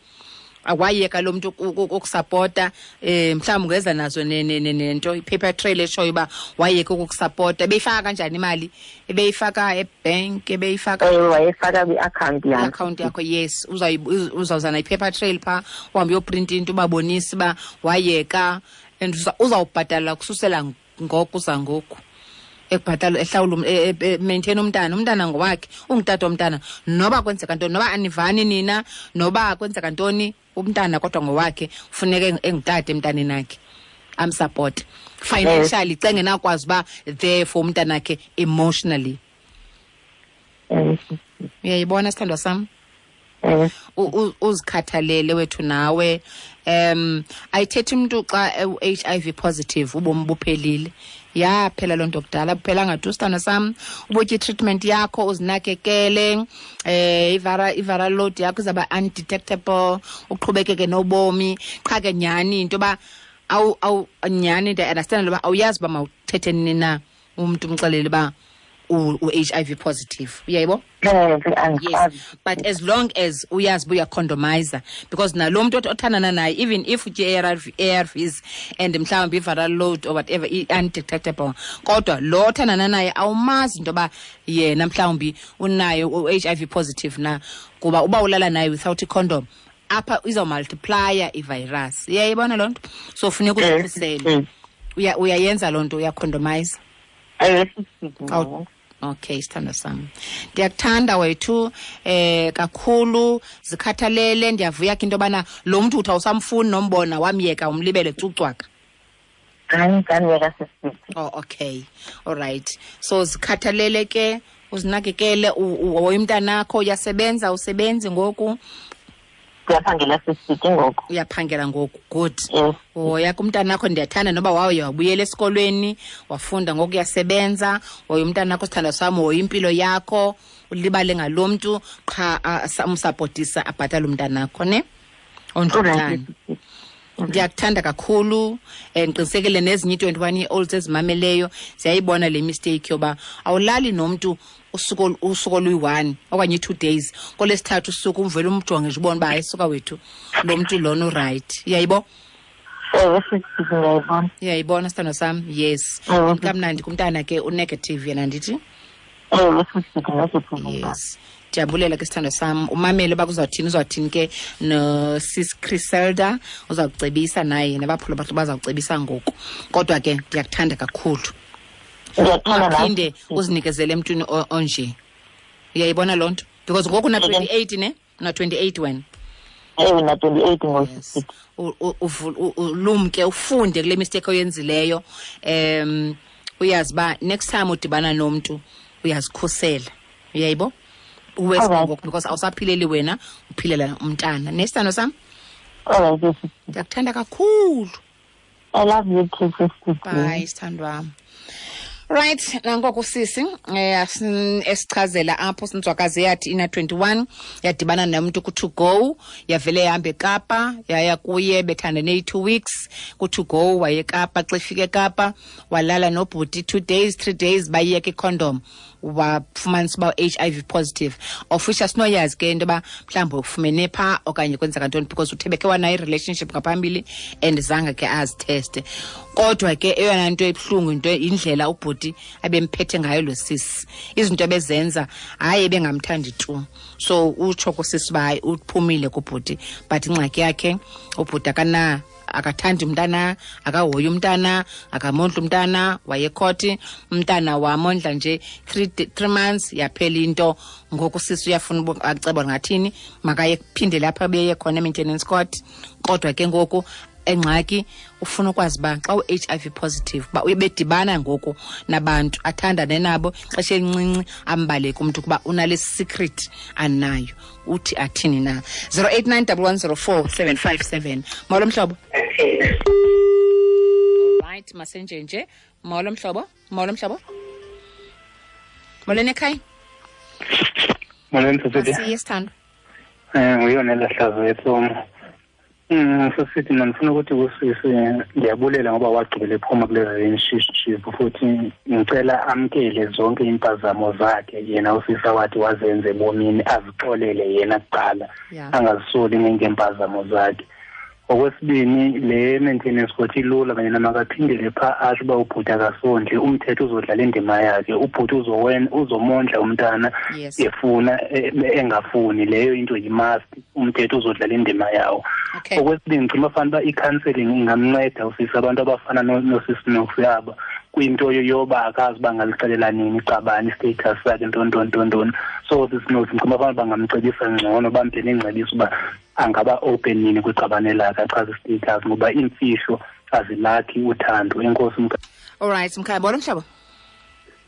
awayeka lo mntu ukusapota. Mhlawumbi ungeza nazo nento, i-paper trail eshoyo uba wayeka ukukusapota. Ebeyifaka kanjani imali? Ebeyifaka ebhenki, ebeyifaka?
Ewe, wayefaka kwi-akhawunti yakho.
Iakhawunti yakho, yes. Uzawuza nayi-paper trail phaa, uhambe uyoprinta into ubabonise uba wayeka, and uzawubhatala kususela ngoku uza ngoku. Ekubhatala, ehlawula, maintain umntana, umntana ngowakhe, ungutata womntana. Noba kwenzeka ntoni, noba anivani nina, noba kwenzeka ntoni, umntana kodwa ngowakhe, funeka engutata emntaneni akhe, amsupport financially, xa engenakwazi uba there for umntanakhe emotionally. Uyayibona, sithandwa sam? Uzikhathalele wethu nawe. Ayithethi umntu xa u-HIV positive ubomi buphelile. Yaphela loo nto kudala, buphelanga tu, sithando sam. Ubutye i-treatment yakho, uzinakekele, i-viral load yakho izawuba undetectable, uqhubekeke nobomi. Qha ke nyhani into yoba awu nyhani ndiya-understand uba awuyazi uba mawuthethe nini na umntu umxelele uba u-HIV positive, uyayibo?
Yes,
but as long as uyazi uba uyacondomizer, because nalo mntu othandana naye, even if utye ARVs and mhlawumbi i-viral load or whatever i-undetectable, kodwa lo othandana naye awumazi into yoba yena mhlawumbi unayo u-HIV positive na, kuba uba ulala naye without icondom apha izawumultiplya ivirus. Uyayibona loo nto? So funeka uzikhusele. Uyayenza loo nto, uyacondomize? Okay, sithandwa sami, ndiyakuthanda wethu kakhulu, zikhathalele. Ndiyavuya ke into yobana lo mntu uthi awusamfuni nombona, wamyeka, umlibele cucwaka. Oh, okay, all right. So zikhathalele ke, uzinakekele, uhoye umntanakho. Uyasebenza? Usebenzi ngoku?
Ndiyaphangela sisiti ngoku.
Uyaphangela ngoku, good.
Yes.
Hoya kumntanakho, ndiyathanda noba wawuye wabuyela esikolweni wafunda, ngoku uyasebenza. Hoya umntanakho, sithandwa sami, hoya impilo yakho, ulibale ngalo mntu qha, umsapotisa abhatale umntanakho, ne ondle umntana. Ndiyakuthanda kakhulu. Ndiqinisekile nezinye i-21 year olds ezimameleyo ziyayibona le mistake yoba awulali nomntu usuku oluyi-1 okanye i-2 days, kolesithathu usuku umvele umjonge nje ubone uba hayi suka wethu, lo mntu lona urayithi. Uyayibo?
Ewe, sisi, ndiyayibona.
Uyayibona, sithandwa sam? Yes.
Ewe.
Kamnandi kumntana ke, unegative yena, ndithi?
Ewe, sisi, negative.
Yes. Ndiyabulela ke, sithandwa sam. Umamele uba kuzawuthini, uzawuthini ke nosis Criselda, uzawucebisa naye, nabaphula bathu bazawucebisa ngoku. Kodwa ke ndiyakuthanda kakhulu.
Ndiyakuthanda nawe.
Ungaphinde uzinikezele emntwini onje. Uyayibona loo nto? Because ngoku una 28, ne? Una 28 wena.
Ewe, na 28 ngoku.
Yes. Ulumke, ufunde kule mistake oyenzileyo. Uyazi uba next time udibana nomntu uyazikhusela. Uyayibo? Uwes ngoku, because awusaphileli wena, uphilela umntana. Nesithando sam?
All right, yes.
Ndiyakuthanda kakhulu.
I love you too, sister.
Bye, sithandwa wam. Right, nangoku sisi esichazela apho sinzwakazi yathi ina 21 yadibana nomntu ku to go, yavele yahamba eKapa, yaya kuye, bethandane i-2 weeks ku to go, waye eKapa. Xa efika eKapa walala nobhuti 2 days, 3 days, bayiyeka icondom, wafumanisa uba HIV positive. Of which asinoyazi ke into yoba mhlawumbi ufumene phaa okanye kwenzeka ntoni, because uthe bekhe wanayo i-relationship ngaphambili and zange ke azitheste. Kodwa ke eyona nto ebuhlungu into indlela ubhuti abemphethe ngayo lo sisi, izinto ebezenza, hayi ebengamthandi tu. So utsho kusisi uba hayi uphumile kubhuti, but ingxaki yakhe ubhuti akathandi umntana, akahoyi umntana, akamondli umntana, wayekhoti umntana wamondla nje 3 months, yaphela into. Ngoku sisi uyafuna aceba ngathini, makaye kuphinde lapha abeye khona e-maintenance court. Kodwa ke ngoku engxaki ufuna ukwazi uba xa u-HIV positive, uba ubedibana ngoku nabantu athandane nabo xesha elincinci, ambaleke umntu kuba unale secret anayo. Uthi athini na? Zero eight nine double one zero four seven five seven. Molo mhlobo. Right, masenjenje. Molo mhlobo. Molo mhlobo. Molweni ekhaya.
Molweni sisithi.
Asiye sithando.
Nguyona lahlazo yetsomo. Sisithi mina ngifuna ukuthi kusisi ndiyabulela ngoba wagqibela ephuma kule relationship, futhi ngicela amkele zonke impazamo zakhe yena usisi wathi wazenze ebomini, azixolele yena kuqala, angazisoli ngempazamo zakhe. Okwesibini, le maintenance court ilula, yena makaphindele pha asho uba ubhuti akasondli, umthetho uzodlala indima yakhe, ubhuti uzomondla umntana efuna engafuni, leyo into yi-must, umthetho uzodlala indima yawo. Okwesibini, ngicima fana uba i-counseling ingamnceda usisi, abantu abafana nosisi Noksi aba kwinto yoba akazi uba angalixelela nini iqabane i-status sakhe, ntoni, ntoni, ntoni, ntoni. So sisi Noksi ngicima fana bangamcebisa ngcono, bamphe nengcebiso uba angaba open nini kwiqabane lakhe, achaze i-status, ngoba iimfihlo azilakhi uthando. Enkosi mkhaya.
All right, mkhaya, bolo mhlobo.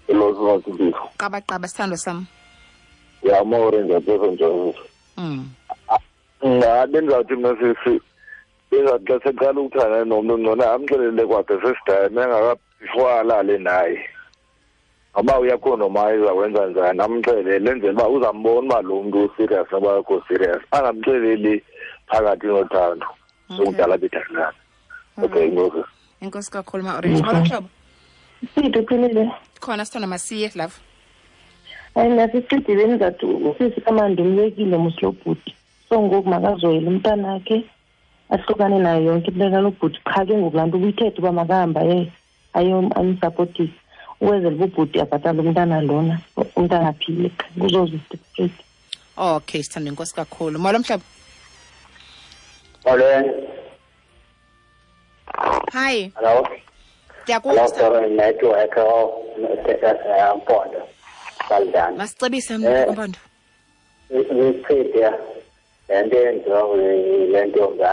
Hello, Sisi.
Qaba qaba sithando sam.
Ya more ngiyabona nje. Bendizawuthi mna sisi, bengathi xa seqala ukuthandana nomntu ngcono amxelele kwakhe sesidame before alale naye. Ngoba uyakhondomayiza wenza njani, amxelele enzele uba uzambona uba lo mntu userious noba akekho serious, angamxeleli phakathi nothando. Sokudala bethandana. Okay, enkosi.
Enkosi kakhulu, Ma Orange. Molo mhlobo.
Siphi, uphilile?
Khona sithanda, masiye love.
Hayi, nasisithi bendizathi usisi kamandi umyekile mos lo bhuti, so ngoku makazoyela umntanakhe, ahlukane nayo yonke into kalo bhuti. Qha ke ngoku laa nto ubuyithethe uba makahamba ayomsapotisa ukwenzela uba ubhuti abhatale umntana lona, umntana aphile, qha kuzoza straight.
Okay, sithando, inkosi kakhulu. Molo mhlobo.
Molweni.
Hi.
Hello.
Ndiyakuva.
Hello, sorry, network Mpondo. Saldana.
Masicebise mna Mpondo.
Isichithe le nto yenziwa le ntombi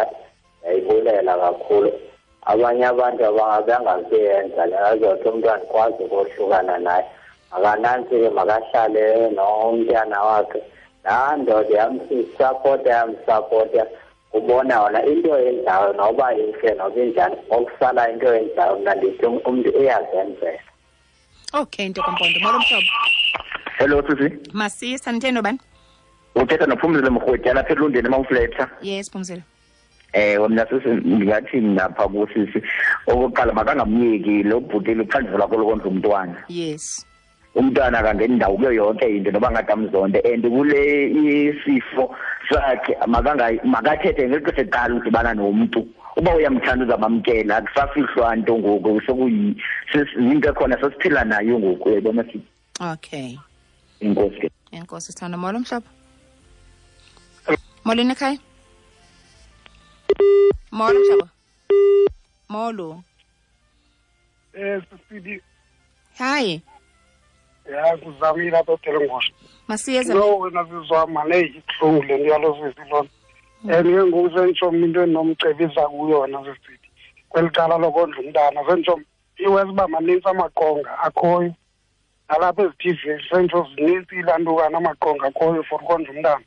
yayibulela kakhulu. Abanye abantu abangazuyenza le, azothi umntu andikwazi ukohlukana naye. Makanantsi ke, makahlale nomntana wakhe. Laa ndoda yamsapota, yamsapota. Ubona wona into yenzayo noba intle noba injani, okusala into yenzayo mna ndithi umntu uyazenzela.
Okay, nto kaMpondo. Molo mhlobo.
Hello sisi.
Masisa, nitheni nobani?
Uthetha noPhumzile Mrhwetyana lapha eLundeni eMount.
Yes, Phumzile.
Mna sisi ndingathi mna pha kusisi, okokuqala makangamyeki lo bhuti luxanduva lwakho lokondla umntwana.
Yes.
Umntwana akangeni ndawo kuyo yonke into noba ngathi amzonde, and kule isifo sakhe makathethe ngexesha eqala udibana nomntu. Uba uyamthanda uzamamkela, akusafihlwa nto ngoku, yinto ekhona sesiphila nayo ngoku, uyayibona sisi.
Okay.
Enkosi ke.
Enkosi sithando. Molo mhlobo. Molweni ekhaya. Molo mhlobo. Molo.
Sisi.
Hi.
Ya, kuzamile apha eTelengosha.
Masiyeza.
No, wena sizwama le ibuhlungu le nto yalo sisi lona. And ke ngoku senditsho mna into endinomcebisa kuyona sisithi kweli cala lokondla umntana, senditsho iwesi uba manintsi amaqonga akhoyo nalapha ezi-TV, senditsho zinintsi ilantukana amaqonga akhoyo for ukondla umntana.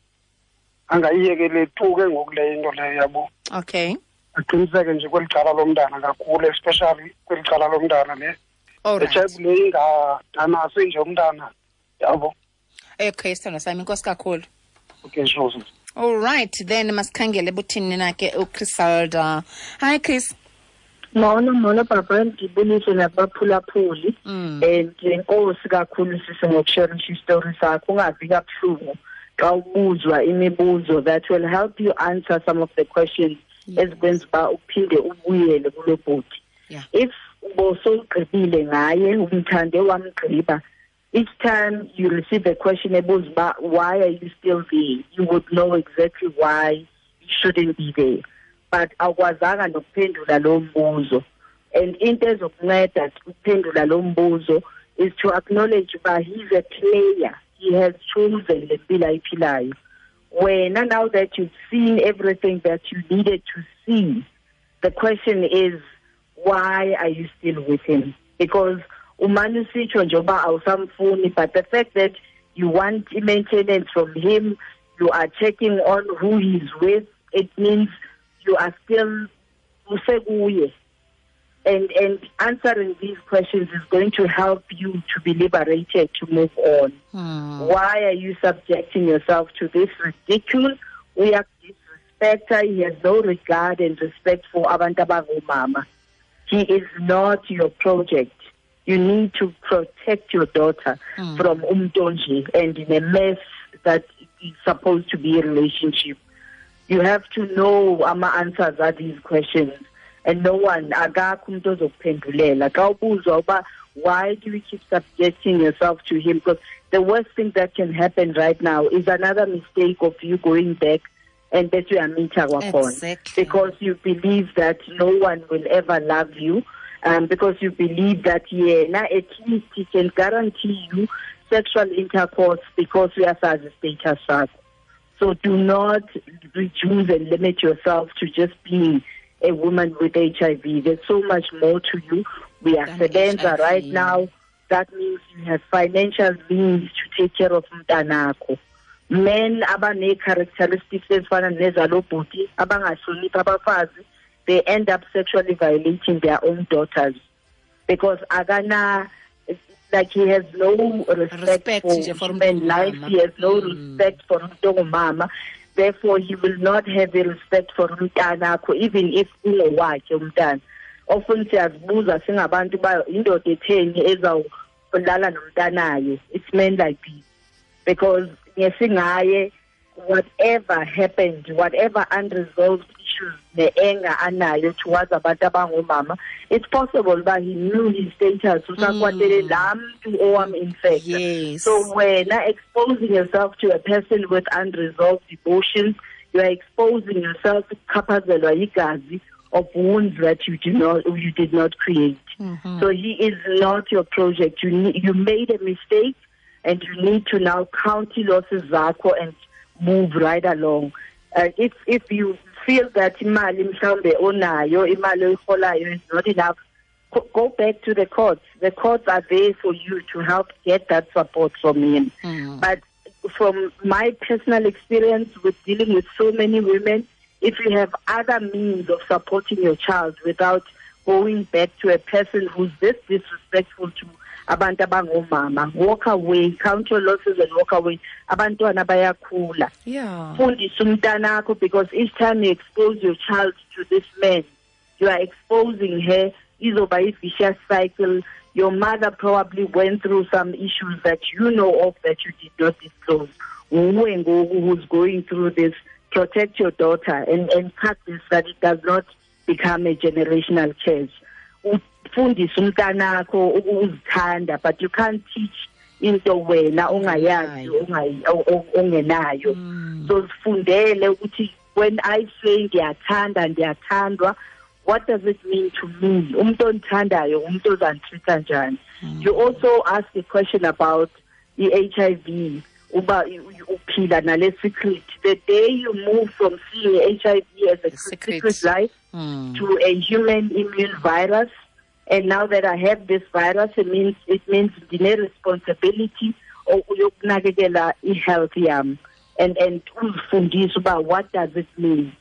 Angayiyekele tu ke ngoku le into leyo, yabo.
Okay.
Aqiniseke nje kweli cala lomntana kakhulu, especially kweli cala lomntana le.
All right.
HIV le ingadanasi nje umntana, yabo.
Okay, sithando sami, inkosi kakhulu.
Okay, sure.
All right, then masikhangele buthini na ke uChrisalda. Hi Chris.
Molo, molo baba, ndibulise nabaphulaphuli. And inkosi kakhulu sisi ngokusharisha isitori sakho, ungavi kabuhlungu xa ubuzwa imibuzo that will help you answer some of the questions ezikwenza uba uphinde ubuyele kulo bhuti. If ubosowugqibile ngaye, umthande wamgqiba, each time you receive a question ebuza uba why are you still there, you would know exactly why you shouldn't be there. But awukwazanga nokuphendula lo mbuzo. And into ezokunceda ukuphendula lo mbuzo is to acknowledge uba he's a player. He has chosen le mpilo ayiphilayo. Wena, now that you've seen everything that you needed to see, the question is, why are you still with him? Because umane usitsho nje uba awusamfuni, but the fact that you want maintenance from him, you are checking on who he's with, it means you are still usekuye. And answering these questions is going to help you to be liberated, to move on. Why are you subjecting yourself to this ridicule? We are disrespecter. He has no regard and respect for abantu abangomama. He is not your project. You need to protect your daughter from umntu and in a mess that is supposed to be a relationship. You have to know ama answers are these questions. And no one, akakho umuntu ozokuphendulela. Xa ubuzwa uba why do you keep subjecting yourself to him? Because the worst thing that can happen right now is another mistake of you going back and bese uyamitha kwakhona.
Exactly.
Because you believe that no one will ever love you, because you believe that yena at least he can guarantee you sexual intercourse because uyasazi status sakho. So do not reduce and limit yourself to just being a woman with HIV. There's so much more to you. We are sebenza right now. That means you have financial means to take care of umntanakho. Men abane characteristics ezifana nezalo bhuti abangahloniphi abafazi, they end up sexually violating their own daughters because akana, like he has no respect for human life. He has no respect for umuntu ongumama. Therefore, he will not have a respect for umntanakho, even if ungowakhe umntana. Often siyazibuza singabantu ba indoda etheni ezawulala nomntanayo. It's men like this. Because ngesingaye, whatever happened, whatever unresolved issues ne-anger anayo towards abantu abangomama, it's possible that he knew his status, usakwatele laa mntu owam-infecta.
Yes.
So wena exposing yourself to a person with unresolved emotions, you are exposing yourself to kuchaphazelwa yigazi of wounds that you did not create.
Mm-hmm.
So he is not your project. You made a mistake, and you need to now count losses zakho and move right along. If you feel that imali mhlawumbe onayo, imali oyiholayo is not enough, go back to the courts. The courts are there for you to help get that support from him.
Mm.
But from my personal experience with dealing with so many women, if you have other means of supporting your child without going back to a person who's this disrespectful to abantu abangomama, walk away, count your losses and walk away. Abantwana bayakhula.
Yeah.
Fundisa umntanakho, because each time you expose your child to this man, you are exposing her. Izoba a vicious cycle. Your mother probably went through some issues that you know of that you did not disclose. Who's going through this, protect your daughter and cut this, that it does not become a generational curse. Ufundise umntanakho ukuzithanda, but you can't teach into wena ongayazi, ongenayo. So sifundele ukuthi when I say ngiyathanda, ndiyathandwa, what does it mean to me? Umuntu ondithandayo, umuntu ozanditreat njani? You also ask a question about the HIV, uba uphila nale secret. The day you move from seeing HIV as a secret life to a human immune virus, and now that I have this virus, it means ndine responsibility yokunakekela i-health yam, and uzifundise uba what does it mean.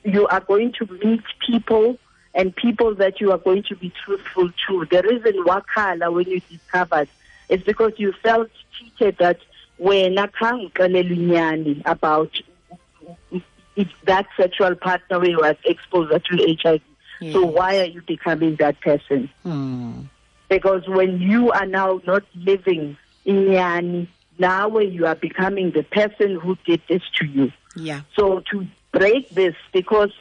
You are going to meet people, and people that you are going to be truthful to. The reason wakhala when you discovered is because you felt cheated, that wena khange uxelelwe inyani about that sexual partner who was exposed to HIV.
Yes.
So why are you becoming that person?
Mm.
Because when you are now not living inyani, now you are becoming the person who did this to you.
Yeah.
So to break this, because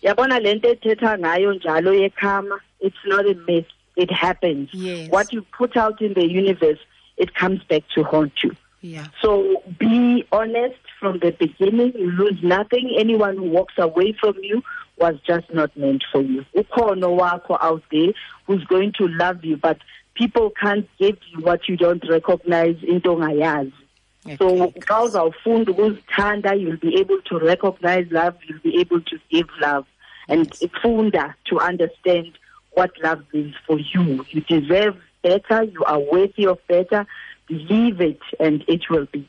yabona lento ethetha ngayo njalo yekhama, it's not a myth, it happens.
Yes.
What you put out in the universe, it comes back to haunt you.
Yeah.
So be honest from the beginning. You lose nothing. Anyone who walks away from you was just not meant for you. Ukhona wakho out there who's going to love you, but people can't give you what you don't recognize, into ongayazi. So xa uzawufunda ukuzithanda, you'll be able to recognize love, you'll be able to give love. And funda to understand what love means for you. You deserve better, you are worthy of better. Believe it and it will be.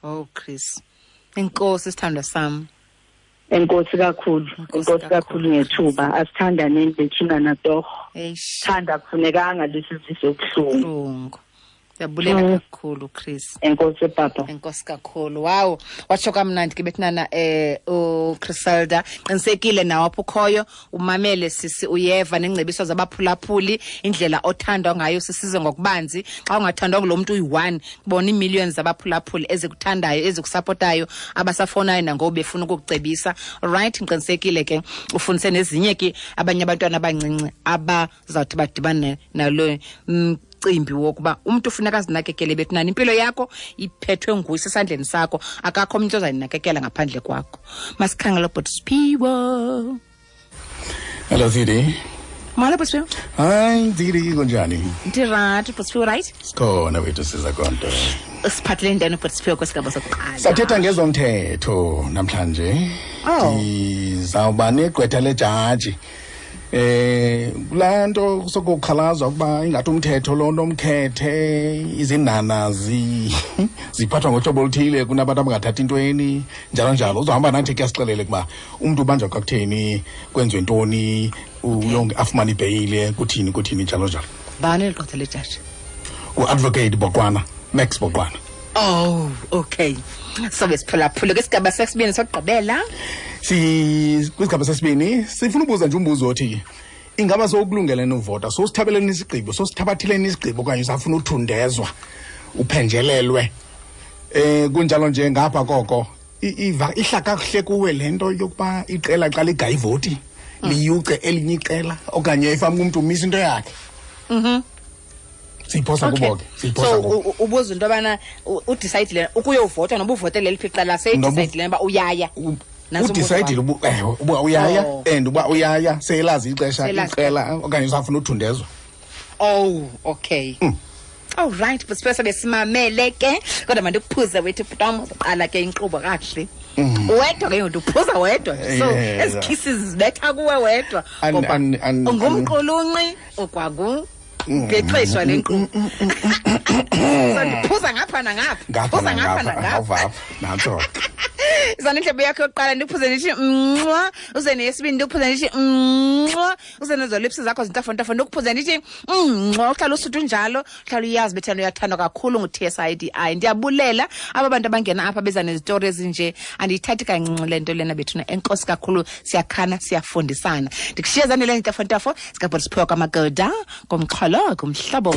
Oh, Chris. Enkosi sithandwa sam.
Enkosi kakhulu. Enkosi kakhulu ngethuba. Asithandaneni bethuna natorho.
Eish.
Thanda kufunekanga lesizise ubuhlungu.
Siyabulela kakhulu, Chris.
Enkosi papa.
Enkosi kakhulu. Wow, watsho kamnandi ke bethunana uChriselda. Qinisekile nawe apho ukhoyo, umamele sisi, uyeva nengcebiso zabaphulaphuli, indlela othandwa ngayo sisize ngokubanzi. Xa ungathandwa ngulo muntu uyi-one, kubona ii-millions zabaphulaphuli ezikuthandayo, ezikusapotayo, abasafonayo nangoku befuna ukukucebisa. Right, ngiqinisekile ke ufundise nezinye ke abanye abantwana abancinci abazawuthi badibane nalo mcimbi wokuba umuntu ufuneka azinakekele bethunana. Impilo yakho iphethwe nguye, isesandleni sakho, akakho umuntu ozayinakekela ngaphandle kwakho. Masikhangele ubhuti Siphiwo.
Hello, Didi.
Molo, bhuti Siphiwo.
Hayi, Didi, kunjani?
Ndirayithi, bhuti Siphiwo, right?
Sikhona wethu, siza konto.
Usiphathele ntoni, bhuti Siphiwo, kwesigaba sokuqala?
Sathetha ngezomthetho namhlanje.
Oh.
Ndizawuba negqwetha lejaji. Kulaa nto sokukhalazwa ukuba ingathi umthetho lo nomkhethe, izinana ziphathwa ngohlobo oluthile kunabantu abangathathi intweni, njalo njalo. Uzohamba nathi ke asixelele ukuba umntu ubanjwa kwakutheni, kwenziwe ntoni, uyonke afumane ibheyile, kuthini, kuthini, njalo njalo.
Bani ligqwetha lejaji?
U-Advocate Boqwana, Max Boqwana.
Oh, okay. So besiphulaphula kwisigaba sesibini sokugqibela.
Kwisigaba sesibini sifuna ubuza nje umbuzo othi ingaba sowukulungele novota, sowusithabeleni isigqibo, sowusithabathileni isigqibo okanye usafuna uthundezwa, uphenjelelwe Kunjalo nje ngapha koko ihla kakuhle kuwe le nto yokuba iqela xa ligaya ivoti liyuce elinye iqela okanye ifama umntu umisa into yakhe. Siyiphosa kubo ke, siyiphosa
So
kubo.
ubuza into yobana udicayidile ukuyovota noba uvotele liphi iqela, seyidicayidile uba uyaya. Nantso umbuzo
Udicayidile
wakho.
ewe, uba uyaya
Oh.
and uba uyaya seyelazi ixesha
Seyelazi.
iqela okanye usafuna uthundezwa.
Oh, okay. All right, but sipesa besimamele ke. Kodwa mandikuphuze wethu bhutam, uzoqala ke inkqubo kakuhle. Wedwa ke ngoku uphuza wedwa. So ezi kisses zibetha kuwe wedwa. Ngoba ungumqulunqi okwangu ngexeshwa lenkqubo. So ndiphuza ngapha nangapha.
Ngapha
Phuza ngapha
nangapha,
nangapha.
awuvapha nantso.
Izana indlebe yakho yokuqala ndikuphuze ndithi mnxwa, uze neyesibini ndikuphuze ndithi mnxwa, uze nezo lips zakho zintafontafo ndikuphuze ndithi mnxwa. Uhlala usuthu njalo, uhlala uyazi bethana uyathandwa kakhulu ngu-TSIDI. Ndiyabulela aba bantu abangena apha beza nezitori ezinje, andiyithathi kancinci le nto lena bethuna. Enkosi kakhulu, siyakhana, siyafundisana. Ndikushiye zanele ntafontafo zikabhoti siphiwa kwamagoda ngomxholo kumhlobo.